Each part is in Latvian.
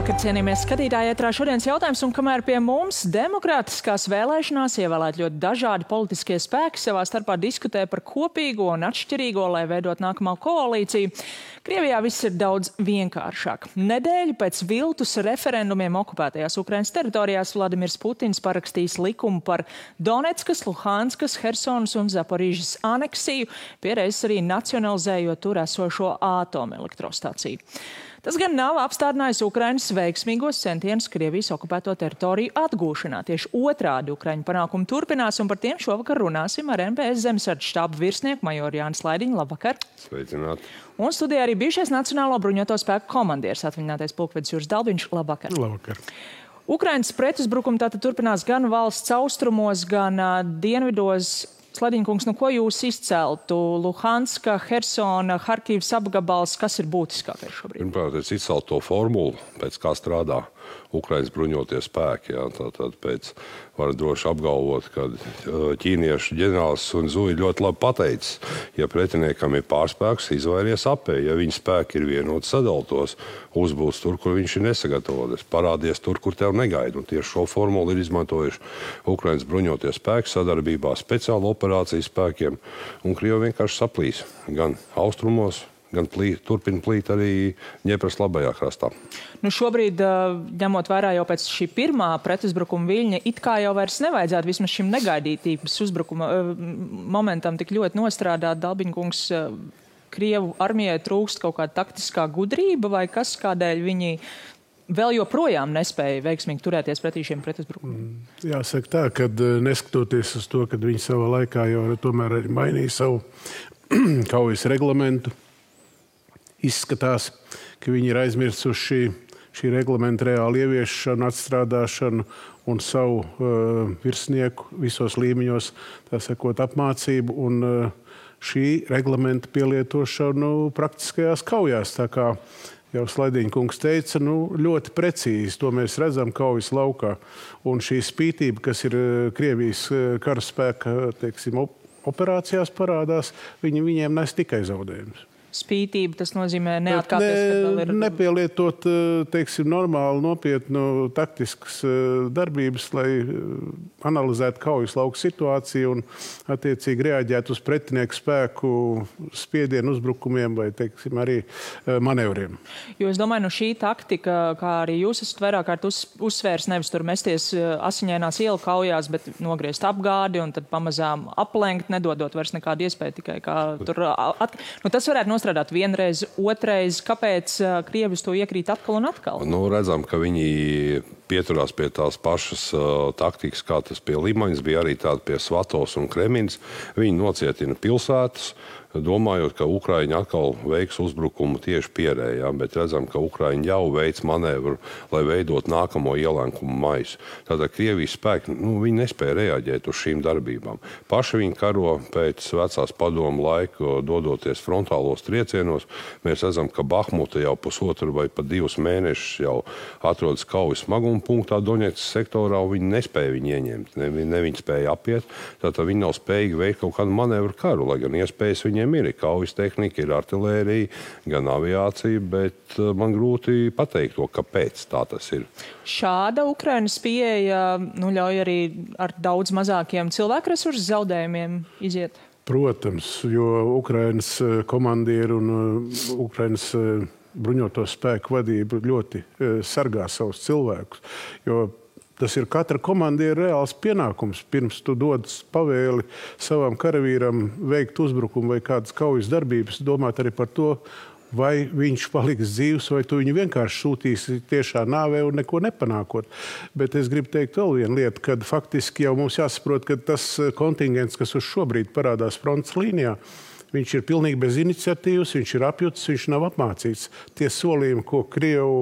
Labvakar, cienījamies skatītāji, ētrā šodienas jautājums, un kamēr pie mums demokrātiskās vēlēšanās ievēlēt ļoti dažādi politiskie spēki savā starpā diskutē par kopīgo un atšķirīgo, lai veidot nākamā koalīciju, Krievijā viss ir daudz vienkāršāk. Nedēļu pēc viltus referendumiem okupētajās Ukrainas teritorijās Vladimirs Putins parakstījis likumu par Donetskas, Luhanskas, Hersonas un Zaporīžas aneksiju, piereiz arī nacionalizējot tur esošo atomelektrostaciju. Tas gan nav apstādinājis Ukrainas veiksmīgos centienus Krievijas okupēto teritoriju atgūšanā. Tieši otrādi Ukraiņu panākumi turpinās, un par tiem šovakar runāsim ar NPS zemesardzes štāba virsnieku majoru Jānis Laidiņu. Labvakar! Sveicināti! Un studijā arī bijušais Nacionālo bruņoto spēku komandieris, atvaļinātais pulkvedis Juris Dalbiņš. Labvakar! Labvakar! Ukrainas pretuzbrukumi tātad turpinās gan valsts austrumos, gan dienvidos. Sladiņkungs, nu ko jūs izceltu? Luhanska, Hersona, Harkivas apgabals, kas ir būtiskākais šobrīd? Pirmkārt, es izceltu to formulu, pēc kā strādā Ukrainas bruņotie spēki. Jā. Tātad var droši apgalvot, ka ķīniešu ģenerālis Sun Zui ļoti labi pateicis, ja pretiniekam ir pārspēks, izvairies apēji. Ja viņa spēki ir vienoti sadaltos, uzbūs tur, kur viņš ir nesagatavoties, parādies tur, kur tev negaida. Un tieši šo formulu ir izmantojuši Ukrainas bruņotie spēki sadarbībā speciālu operāciju spēkiem, un Krievi vienkārši saplīs gan austrumos, gan turpina plīt arī Ņepras labajā krastā. Nu šobrīd, ņemot vērā jau pēc šī pirmā pretuzbrukuma viļņa, it kā jau vairs nevajadzētu vismaz šim negaidītības uzbrukuma momentam tik ļoti nostrādāt. Dalbiņkungs, Krievu armijai trūkst kaut kāda taktiskā gudrība vai kas, kādēļ viņi vēl joprojām nespēja veiksmīgi turēties pretī šiem pretuzbrukumiem? Jāsaka tā, ka neskatoties uz to, ka viņi savā laikā jau tomēr arī mainīja savu kaujas reglamentu, izskatās, ka viņi ir aizmirsuši šī reglamenta reāli ieviešanu, atstrādāšanu un savu virsnieku visos līmeņos, tā sakot, apmācību un šī reglamenta pielietošanu praktiskajās kaujās. Tā kā jau Slaidiņkungs teica, ļoti precīzi to mēs redzam kaujas laukā. Un šī spītība, kas ir Krievijas karaspēka, operācijās parādās, viņiem nes tikai zaudējumus. Spītība, tas nozīmē neatkāpties, kad vēl ir... Nepielietot, normāli, nopietnu taktiskas darbības, lai analizētu kaujas lauku situāciju un attiecīgi reaģētu uz pretinieku spēku spiedienu uzbrukumiem vai, arī manevriem. Jo es domāju, šī taktika, kā arī jūs esat vairāk kārt uzsvērs, nevis tur mesties asiņainās ielu kaujās, bet nogriezt apgādi un tad pamazām aplenkt, nedodot vairs nekādu iespēju tikai kā tur... tas varētu strādāt vienreiz, otrreiz. Kāpēc Krievi to iekrīt atkal un atkal? Redzam, ka viņi pieturās pie tās pašas taktikas, kā tas pie Limaņas bija, arī tāda pie Svatovas un Kremiņas. Viņi nocietina pilsētas, domājot, ka Ukraiņi atkal veiks uzbrukumu tieši Pierējā, bet redzam, ka Ukraiņi jau veic manevru, lai veidot nākamo ielenkumu maisu. Tātad Krievijas spēki, viņi nespēja reaģēt uz šīm darbībām. Paši viņi karo pēc vecās padomu laiku, dodoties frontālos triecienos. Mēs redzam, ka Bahmuta jau pusotru vai pat 2 mēnešus jau atrodas kaujas smaguma punktā Doņetskas sektorā, un viņi nespēja viņu ieņemt. Ne viņi spēja apiet, tātad viņi nav spējīgi veikt kaut kādu manevru karu, lai gan iespējas viņiem ir kaujas tehnika, ir artilērija, gan aviācija, bet man grūti pateikt to, kāpēc tā tas ir. Šāda Ukrainas pieeja ļauj arī ar daudz mazākiem cilvēku resursu zaudējumiem iziet? Protams, jo Ukrainas komandieri un Ukrainas bruņoto spēku vadība ļoti sargā savus cilvēkus, jo tas ir katra komandiera reāls pienākums. Pirms tu dod pavēli savam karavīram veikt uzbrukumu vai kādas kaujas darbības, domāt arī par to, vai viņš paliks dzīvs, vai tu viņu vienkārši sūtīsi tiešā nāvē un neko nepanākot. Bet es gribu teikt vēl vienu lietu, kad faktiski jau mums jāsaprot, ka tas kontingents, kas uz šobrīd parādās frontes līnijā, viņš ir pilnīgi bez iniciatīvas, viņš ir apjutis, viņš nav apmācīts. Tie solījumi, ko Krievu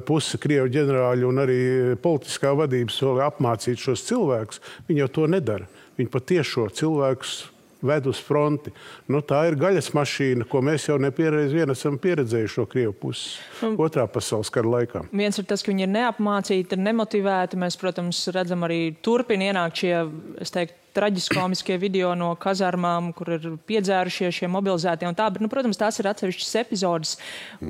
puse, Krievu ģenerāļi un arī politiskā vadība solīja apmācīt šos cilvēkus, viņi jau to nedara. Viņi patiešo cilvēkus ved uz fronti. Tā ir gaļas mašīna, ko mēs jau nepiereiz esam pieredzējuši no Krievu puses otrā pasaules kara laikā. Viens ir tas, ka viņi ir neapmācīti, ir nemotivēti. Mēs, protams, redzam arī turpina ienākt šie, es teiktu, traģiskomiskie video no kazarmām, kur ir piedzērušie šie mobilizētie un tā, bet, protams, tās ir atsevišķas epizodes.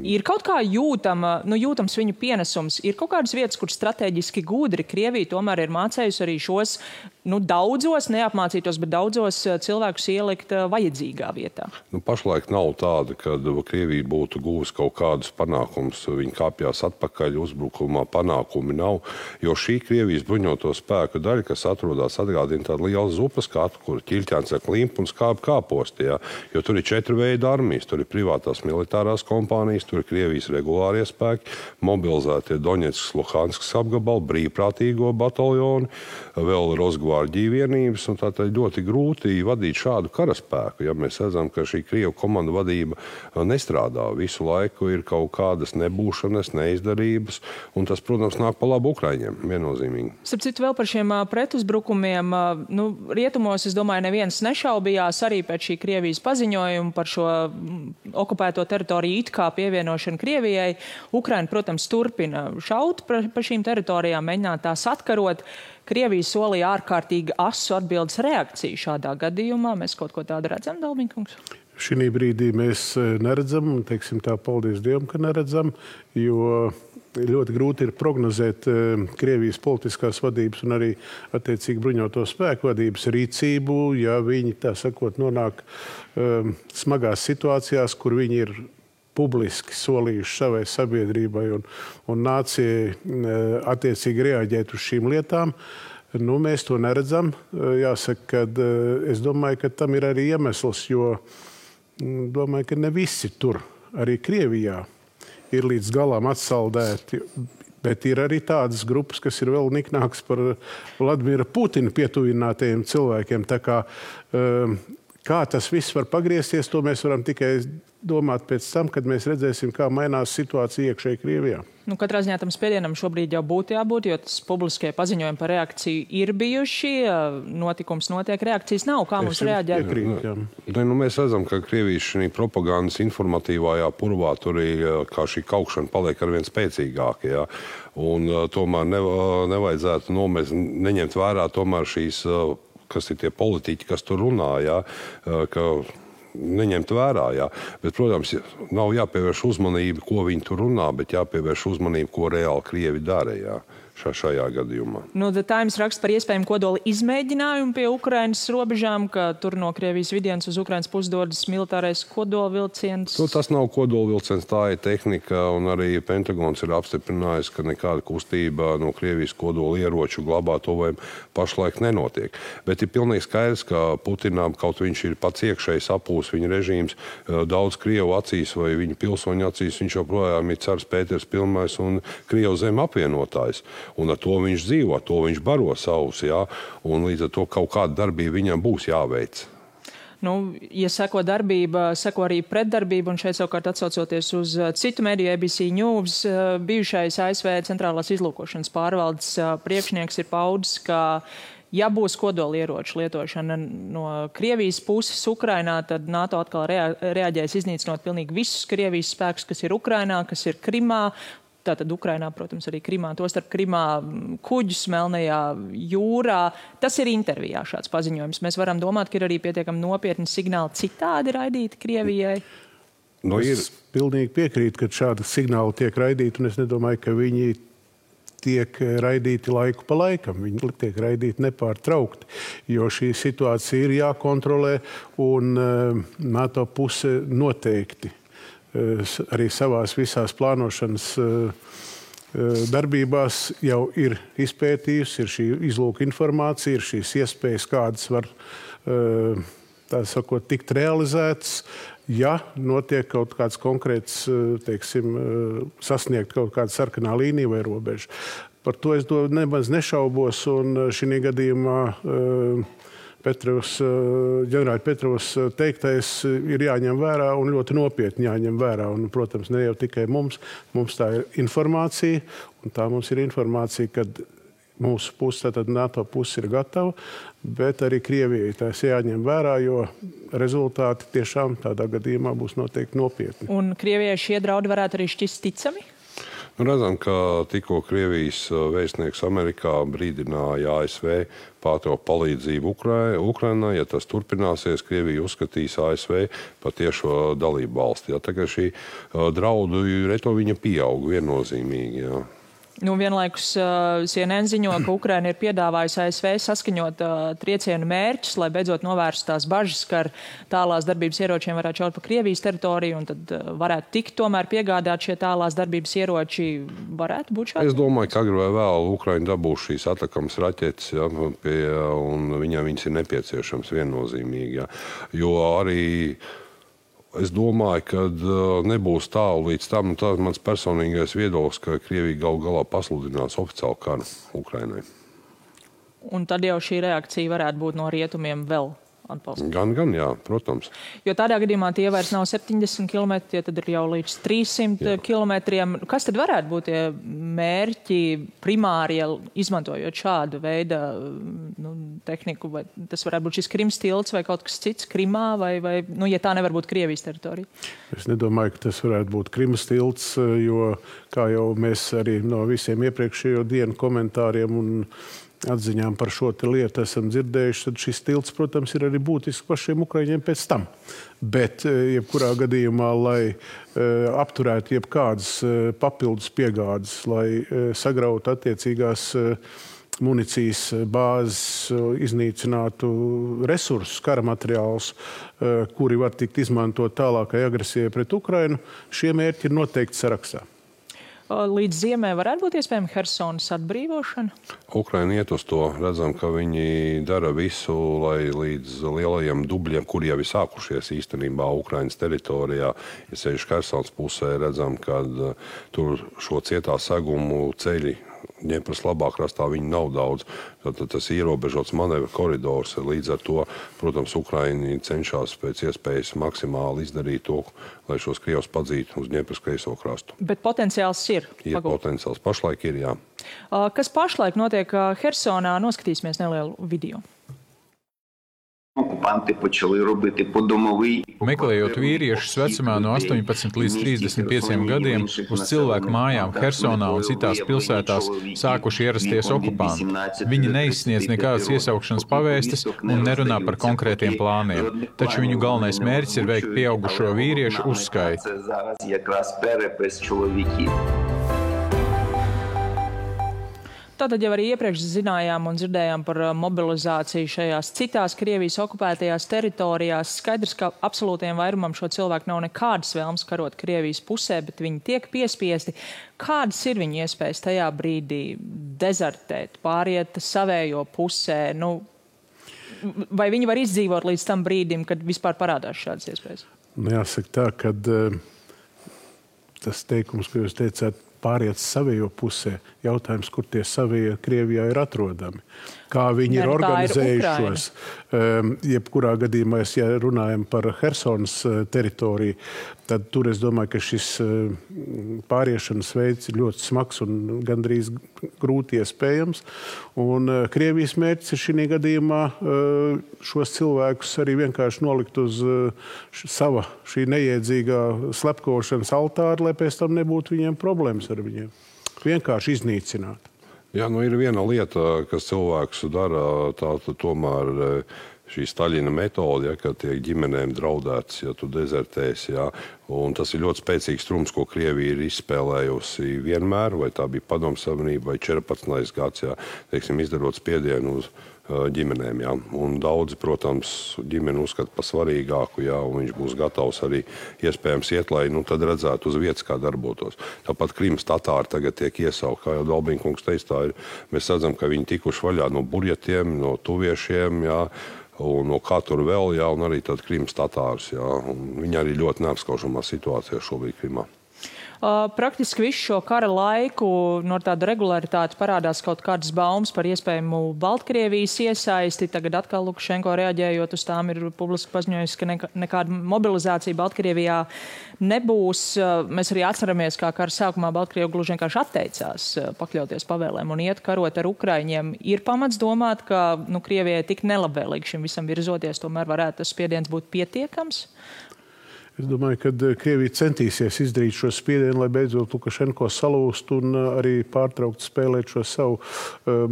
Ir kaut kā jūtams viņu pienesums, ir kaut kādas vietas, kur strateģiski gudri Krievija tomēr ir mācējusi arī šos, daudzos, neapmācītos, bet daudzos cilvēkus ielikt vajadzīgā vietā. Pašlaik nav tāda, ka Krievija būtu guvusi kaut kādus panākumus. Viņi kāpjās atpakaļ uzbrukumā, panākumi nav, jo šī Krievijas bruņoto spēku daļa, kas atrodas, atgādina tādu lielu zupas skatu, kur ķilķēns ar klimpu un skābi kāposti, jā. Jo tur ir 4 veidi armijas, tur ir privātās militārās kompānijas, tur ir Krievijas regulārie spēki, mobilizētie Doņetskas, Luhanskas apgabali, brīvprātīgo bataljoni, vēl Rosgvardija vienības, un tātad ļoti grūti vadīt šādu karaspēku. Ja mēs redzam, ka šī Krievu komanda vadība nestrādā. Visu laiku ir kaut kādas nebūšanas, neizdarības, un tas, protams, nāk pa labu Ukraiņiem, viennozīmīgi. Starp citu, vēl par šiem pretuzbrukumiem, rietumos, es domāju, neviens nešaubījās arī pēc šī Krievijas paziņojuma par šo okupēto teritoriju it kā pievienošanu Krievijai. Ukraina, protams, turpina šaut pa šīm teritorijām, mēģināt tās atkarot. Krievija solīja ārkārtīgi asu atbildes reakciju šādā gadījumā. Mēs kaut ko tādu redzam, Dalbiņkungs? Šī brīdī mēs neredzam, un teiksim tā, paldies Dievam, ka neredzam, jo ļoti grūti ir prognozēt Krievijas politiskās vadības un arī attiecīgi bruņoto spēku vadības rīcību, ja viņi, tā sakot, nonāk smagās situācijās, kur viņi ir publiski solījuši savai sabiedrībai un nācijai attiecīgi reaģēt uz šīm lietām. Mēs to neredzam. Jāsaka, ka es domāju, ka tam ir arī iemesls, jo domāju, ka ne visi tur, arī Krievijā, ir līdz galam atsaldēti. Bet ir arī tādas grupas, kas ir vēl niknākas par Vladimira Putina pietuvinātajiem cilvēkiem. Tā kā tas viss var pagriezties, to mēs varam tikai domāt pēc tam, kad mēs redzēsim, kā mainās situācija iekšēji Krievijā. Katrā ziņā tam spiedienam šobrīd jau būtu jābūt, jo tas publiskie paziņojumi par reakciju ir bijuši, notikums notiek, reakcijas nav. Kā mums reaģēt? Mēs redzam, ka Krievijas šī propagandas informatīvajā purvā tur kā šī kaukšana paliek arvien spēcīgāka. Ja? Un tomēr nevajadzētu neņemt vērā tomēr šīs, kas ir tie politiķi, kas tur runā, ja? Ka neņemt vērā, jā. Bet, protams, nav jāpievērš uzmanība, ko viņi tur runā, bet jāpievērš uzmanība, ko reāli Krievi dara, jā, šajā gadījumā. The Times raksta par iespējamu kodola izmēģinājumu pie Ukrainas robežām, ka tur no Krievijas vidienas uz Ukrainas pusi dodas militārais kodola vilciens. Tas nav kodola vilciens, tā ir tehnika, un arī Pentagons ir apstiprinājis, ka nekāda kustība no Krievijas kodola ieroču glabātuvēm pašlaik nenotiek. Bet ir pilnīgi skaidrs, ka Putinām, kaut viņš ir pats iekšēji sapūs viņa režīms, daudz Krievu acīs vai viņa pilsoņu acīs, viņš joprojām ir cars Pēters Pilmais un Krievu zem apvienotājs. Un ar to viņš dzīvo, to viņš baro savus, jā, un līdz ar to kaut kāda darbība viņam būs jāveic. Ja seko darbība, seko arī pretdarbība, un šeit savukārt atsaucoties uz citu mediju ABC News, bijušais ASV centrālās izlūkošanas pārvaldes priekšnieks ir paudis, ka ja būs kodolieroču lietošana no Krievijas puses Ukrainā, tad NATO atkal reaģēs iznīcinot pilnīgi visus Krievijas spēkus, kas ir Ukrainā, kas ir Krimā. Tātad Ukrainā, protams, arī Krimā, tostarp Krimā kuģus Melnajā jūrā. Tas ir intervijā šāds paziņojums. Mēs varam domāt, ka ir arī pietiekami nopietni signāli citādi raidīti Krievijai. Es pilnīgi piekrītu, ka šādi signāli tiek raidīti, un es nedomāju, ka viņi tiek raidīti laiku pa laikam. Viņi tiek raidīti nepārtraukti, jo šī situācija ir jākontrolē, un NATO puse noteikti arī savās visās plānošanas darbībās jau ir izpētījusi, ir šī izlūka informācija, ir šīs iespējas, kādas var, tā sakot, tikt realizētas, ja notiek kaut kāds konkrēts, teiksim, sasniegt kaut kāda sarkanā līnija vai robeža. Par to es nemaz nešaubos, un šī gadījumā ģenerāļa Petrovs teiktais ir jāņem vērā un ļoti nopietni jāņem vērā. Un, protams, ne jau tikai mums tā ir informācija, un tā mums ir informācija, kad mūsu puse, tātad NATO puse ir gatava, bet arī Krievijai tās jāņem vērā, jo rezultāti tiešām tādā gadījumā būs noteikti nopietni. Un Krievijai šie draudi varētu arī šķist ticami? Redzam, ka tikko Krievijas vēstnieks Amerikā brīdināja ASV pārtraukt palīdzību Ukrainai. Ja tas turpināsies, Krievija uzskatīs ASV par tiešo dalību valsti. Tagad šī draudu retoriņa pieaug viennozīmīgi. Jā. Vienlaikus CNN ziņo, ka Ukraina ir piedāvājusi ASV saskaņot triecienu mērķus, lai beidzot novērstu tās bažas, ka ar tālās darbības ieročiem varētu šaut pa Krievijas teritoriju un tad varētu tikt tomēr piegādāt šie tālās darbības ieroči. Varētu būt šādi? Es domāju, ka agri vai vēl Ukraina dabūs šīs atakamas raķetes, ja, un viņas ir nepieciešams viennozīmīgi. Ja. Jo arī es domāju, ka nebūs tālu līdz tam, un tas mans personīgais viedoklis, ka Krievija galu galā pasludinās oficiālu karu Ukrainai. Un tad jau šī reakcija varētu būt no rietumiem vēl atbalsts? Gan, jā, protams. Jo tādā gadījumā tie vairs nav 70 km, tie tad ir jau līdz 300 kilometriem. Kas tad varētu būt tie mērķi primāri, izmantojot šādu veidu tehniku? Vai tas varētu būt šis Krimas tilts vai kaut kas cits Krimā, vai ja tā nevar būt Krievijas teritorija? Es nedomāju, ka tas varētu būt Krimas tilts, jo, kā jau mēs arī no visiem iepriekšējo dienu komentāriem un atziņām par šo lietu esam dzirdējuši, tad šis tilts, protams, ir arī būtisks pašiem ukraiņiem pēc tam. Bet, jebkurā gadījumā, lai apturētu jebkādas papildus piegādes, lai sagrautu attiecīgās municijas bāzes, iznīcinātu resursus, kara materiālus, kuri var tikt izmantot tālākai agresijai pret Ukrainu, šie mērķi ir noteikti sarakstā. Līdz ziemē varētu būt iespējama Hersonas atbrīvošana? Ukraina iet uz to. Redzam, ka viņi dara visu, lai līdz lielajiem dubļiem, kuri jau ir sākušies īstenībā Ukrainas teritorijā, ja sevišķi Hersonas pusē, redzam, ka tur šo cietā segumu ceļi Dņepras labā krastā viņi nav daudz. Tad tas ierobežots manevra koridors. Līdz ar to, protams, Ukraini cenšas pēc iespējas maksimāli izdarīt to, lai šos Krievus padzītu uz Dņepras kreiso krastu. Bet potenciāls ir? Ir potenciāls. Pašlaik ir, jā. Kas pašlaik notiek Hersonā? Noskatīsimies nelielu video. Meklējot vīriešus vecumā no 18 līdz 35 gadiem, uz cilvēku mājām Hersonā un citās pilsētās sākuši ierasties okupanti. Viņi neizsniedz nekādas iesaukšanas pavēstes un nerunā par konkrētiem plāniem, taču viņu galvenais mērķis ir veikt pieaugušo vīriešu uzskaiti. Tātad jau arī iepriekš zinājām un dzirdējām par mobilizāciju šajās citās Krievijas okupētajās teritorijās. Skaidrs, ka absolūtiem vairumam šo cilvēku nav nekādas vēlmes karot Krievijas pusē, bet viņi tiek piespiesti. Kādas ir viņu iespējas tajā brīdī dezertēt, pāriet savējo pusē? Vai viņi var izdzīvot līdz tam brīdim, kad vispār parādās šādas iespējas? Jāsaka tā, ka tas teikums, ko jūs teicāt, pāriet savējo pusē. Jautājums, kur tie savie Krievijā ir atrodami. Kā viņi ir organizējušos. Jebkurā gadījumā, ja runājam par Hersonas teritoriju, tad tur es domāju, ka šis pāriešanas veids ir ļoti smags un gandrīz grūti iespējams. Un Krievijas mērķis ir šī gadījumā šos cilvēkus arī vienkārši nolikt uz sava šī neiedzīgā slepkošanas altāra, lai pēc tam nebūtu viņiem problēmas ar viņiem. Vienkārši iznīcināt. Jā, ir viena lieta, kas cilvēks dara, tā tomēr šī Staļina metode, kad tiek ģimenēm draudēts, ja tu dezertēsi. Un tas ir ļoti spēcīgs trumps, ko Krievija ir izspēlējusi vienmēr, vai tā bija Padomju Savienība vai 14. gads, izdarot spiedienu uz ģimenēm. Un daudzi, protams, ģimeni uzskata par svarīgāku, un viņš būs gatavs arī iespējams iet, lai tad redzētu uz vietas, kā darbotos. Tāpat Krimas tatāri tagad tiek iesaukt, kā jau Dalbīnkungs teica, tā ir. Mēs redzam, ka viņi tikuši vaļā no burjetiem, no tuviešiem, un no kā tur vēl, un arī tad Krimas tatārus. Viņi arī ļoti neapskaužamā situācijā šobrīd Krimā. Praktiski visu šo kara laiku no tāda regularitāte parādās kaut kādas baumas par iespējamu Baltkrievijas iesaisti. Tagad atkal Lukašenko reaģējot uz tām ir publiski paziņojis, ka nekāda mobilizācija Baltkrievijā nebūs. Mēs arī atceramies, kā kara sākumā Baltkrievi gluži vienkārši atteicās pakļauties pavēlēm un iet karot ar Ukraiņiem. Ir pamats domāt, ka Krievijai tik nelabvēlīgi šim visam virzoties, tomēr varētu tas spiediens būt pietiekams? Es domāju, ka Krievija centīsies izdarīt šo spiedienu, lai beidzot Lukašenko salūst un arī pārtraukt spēlēt šo savu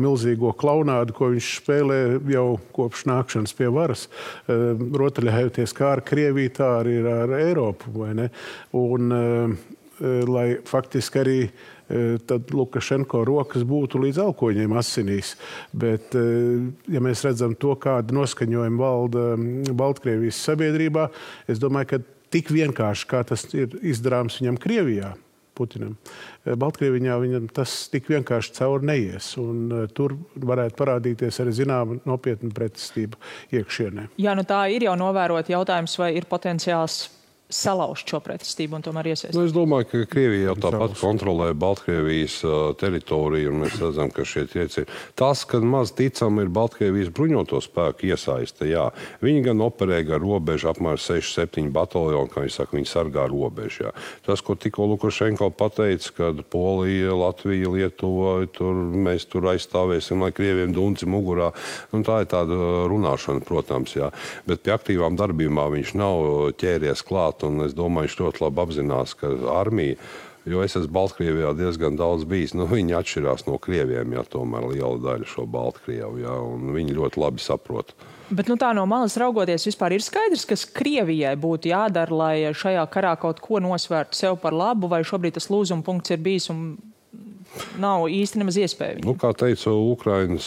milzīgo klaunādu, ko viņš spēlē jau kopš nākšanas pie varas. Rotaļājoties kā ar Krieviju, tā arī ar Eiropu, vai ne? Un lai faktiski arī tad Lukašenko rokas būtu līdz alkoņiem asinīs. Bet, ja mēs redzam to, kāda noskaņojuma valda Baltkrievijas sabiedrībā, es domāju, ka tik vienkārši, kā tas ir izdarāms viņam Krievijā, Putinam, Baltkrievijā viņam tas tik vienkārši cauri neies. Un tur varētu parādīties arī zināma nopietna pretestība iekšienē. Jā, nu tā ir jau novērot jautājums, vai ir potenciāls salauzt šo pretestību un tomēr iesaistīt. Es domāju, ka Krievija jau tāpat kontrolē Baltkrievijas teritoriju, un mēs redzam, ka šie triecieni. Tas, ka maz ticam ir Baltkrievijas bruņoto spēku iesaiste, jā. Viņi gan operē gar robežu, apmēram 6-7 bataljoni, kā viņi saka, viņi sargā robežu, jā. Tas, ko tikko Lukašenko pateica, kad Polija, Latvija, Lietuva, mēs tur aizstāvēsim, lai Krieviem dunci mugurā, un tā ir tāda runāšana, protams, jā. Bet pie aktīvām darbībām viņš nav ķēries klāt. Un es domāju, viņš ļoti labi apzinās, ka armija, jo es esmu Baltkrievijā diezgan daudz bijis, viņi atšķirās no Krieviem, ja tomēr liela daļa šo Baltkrievu, ja, un viņi ļoti labi saprot. Bet tā no malas raugoties vispār ir skaidrs, kas Krievijai būtu jādara, lai šajā karā kaut ko nosvērtu sev par labu, vai šobrīd tas lūzuma punkts ir bijis un nav īsti nemaz iespēja. Kā teica Ukrainas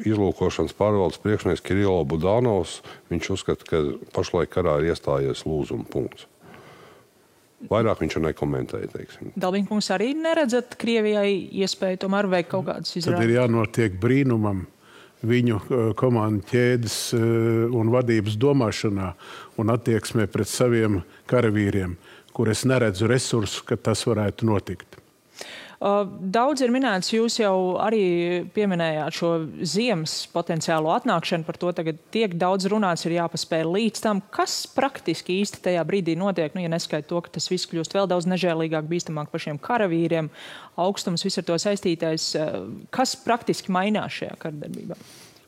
izlūkošanas pārvaldes priekšnieks Kirilo Budanovs, viņš uzskata, ka pašlaik karā ir iestājies lūzuma punkts. Vairāk viņš nekomentēja, teiksim. Dalbiņkungs, arī neredzat Krievijai iespēju tomēr veikt kaut kādas izrādes? Tad ir jānotiek brīnumam viņu komandu ķēdes un vadības domāšanā un attieksmē pret saviem karavīriem, kur es neredzu resursu, ka tas varētu notikt. Daudz ir minēts, jūs jau arī pieminējāt šo ziemas potenciālo atnākšanu, par to tagad tiek daudz runāts, ir jāpaspēj līdz tam. Kas praktiski īsti tajā brīdī notiek, ja neskait to, ka tas viss kļūst vēl daudz nežēlīgāk, bīstamāk pašiem karavīriem, augstums, viss ar to saistītais. Kas praktiski mainās šajā karadarbībā?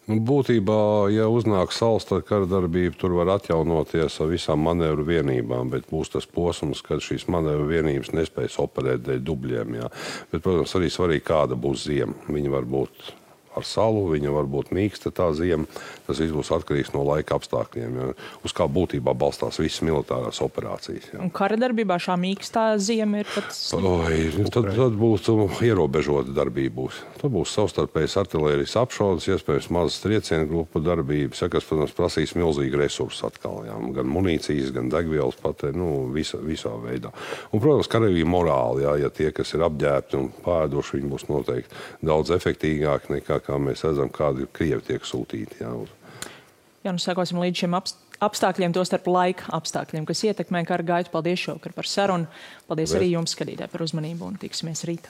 Būtībā, ja uznāk saules, tad karadarbība tur var atjaunoties ar visām manevru vienībām, bet būs tas posms, kad šīs manevru vienības nespējas operēt dēļ dubļiem. Jā. Bet, protams, arī svarīgi, kāda būs ziema. Viņa var būt ar salu, viņa var būt mīksta tā ziema. Tas viss būs atkarīgs no laika apstākļiem, jā. Uz kā būtībā balstās visas militārās operācijas. Jā. Un karadarbībā šā mīkstā ziema ir pat tad būs ierobežota darbība. Tad būs savstarpējas artilērijas apšaudes, iespējams mazas triecienu grupu darbības, kas, protams, prasīs milzīgi resursus atkal. Jā. Gan munīcijas, gan degvielas patē, visā veidā. Un, protams, karavīja morāli, jā, ja tie, kas ir apģērbti un pēduši, viņi būs noteikti daudz efektīgāki nekā, kā mēs redzam, kādi Krievi tiek sūtīti. Jā, sekosim līdz šiem apstākļiem, to starp laika apstākļiem, kas ietekmē kara gaitu. Paldies šovakar par sarunu. Paldies arī jums, skatītāji, par uzmanību un tiksimies rīt.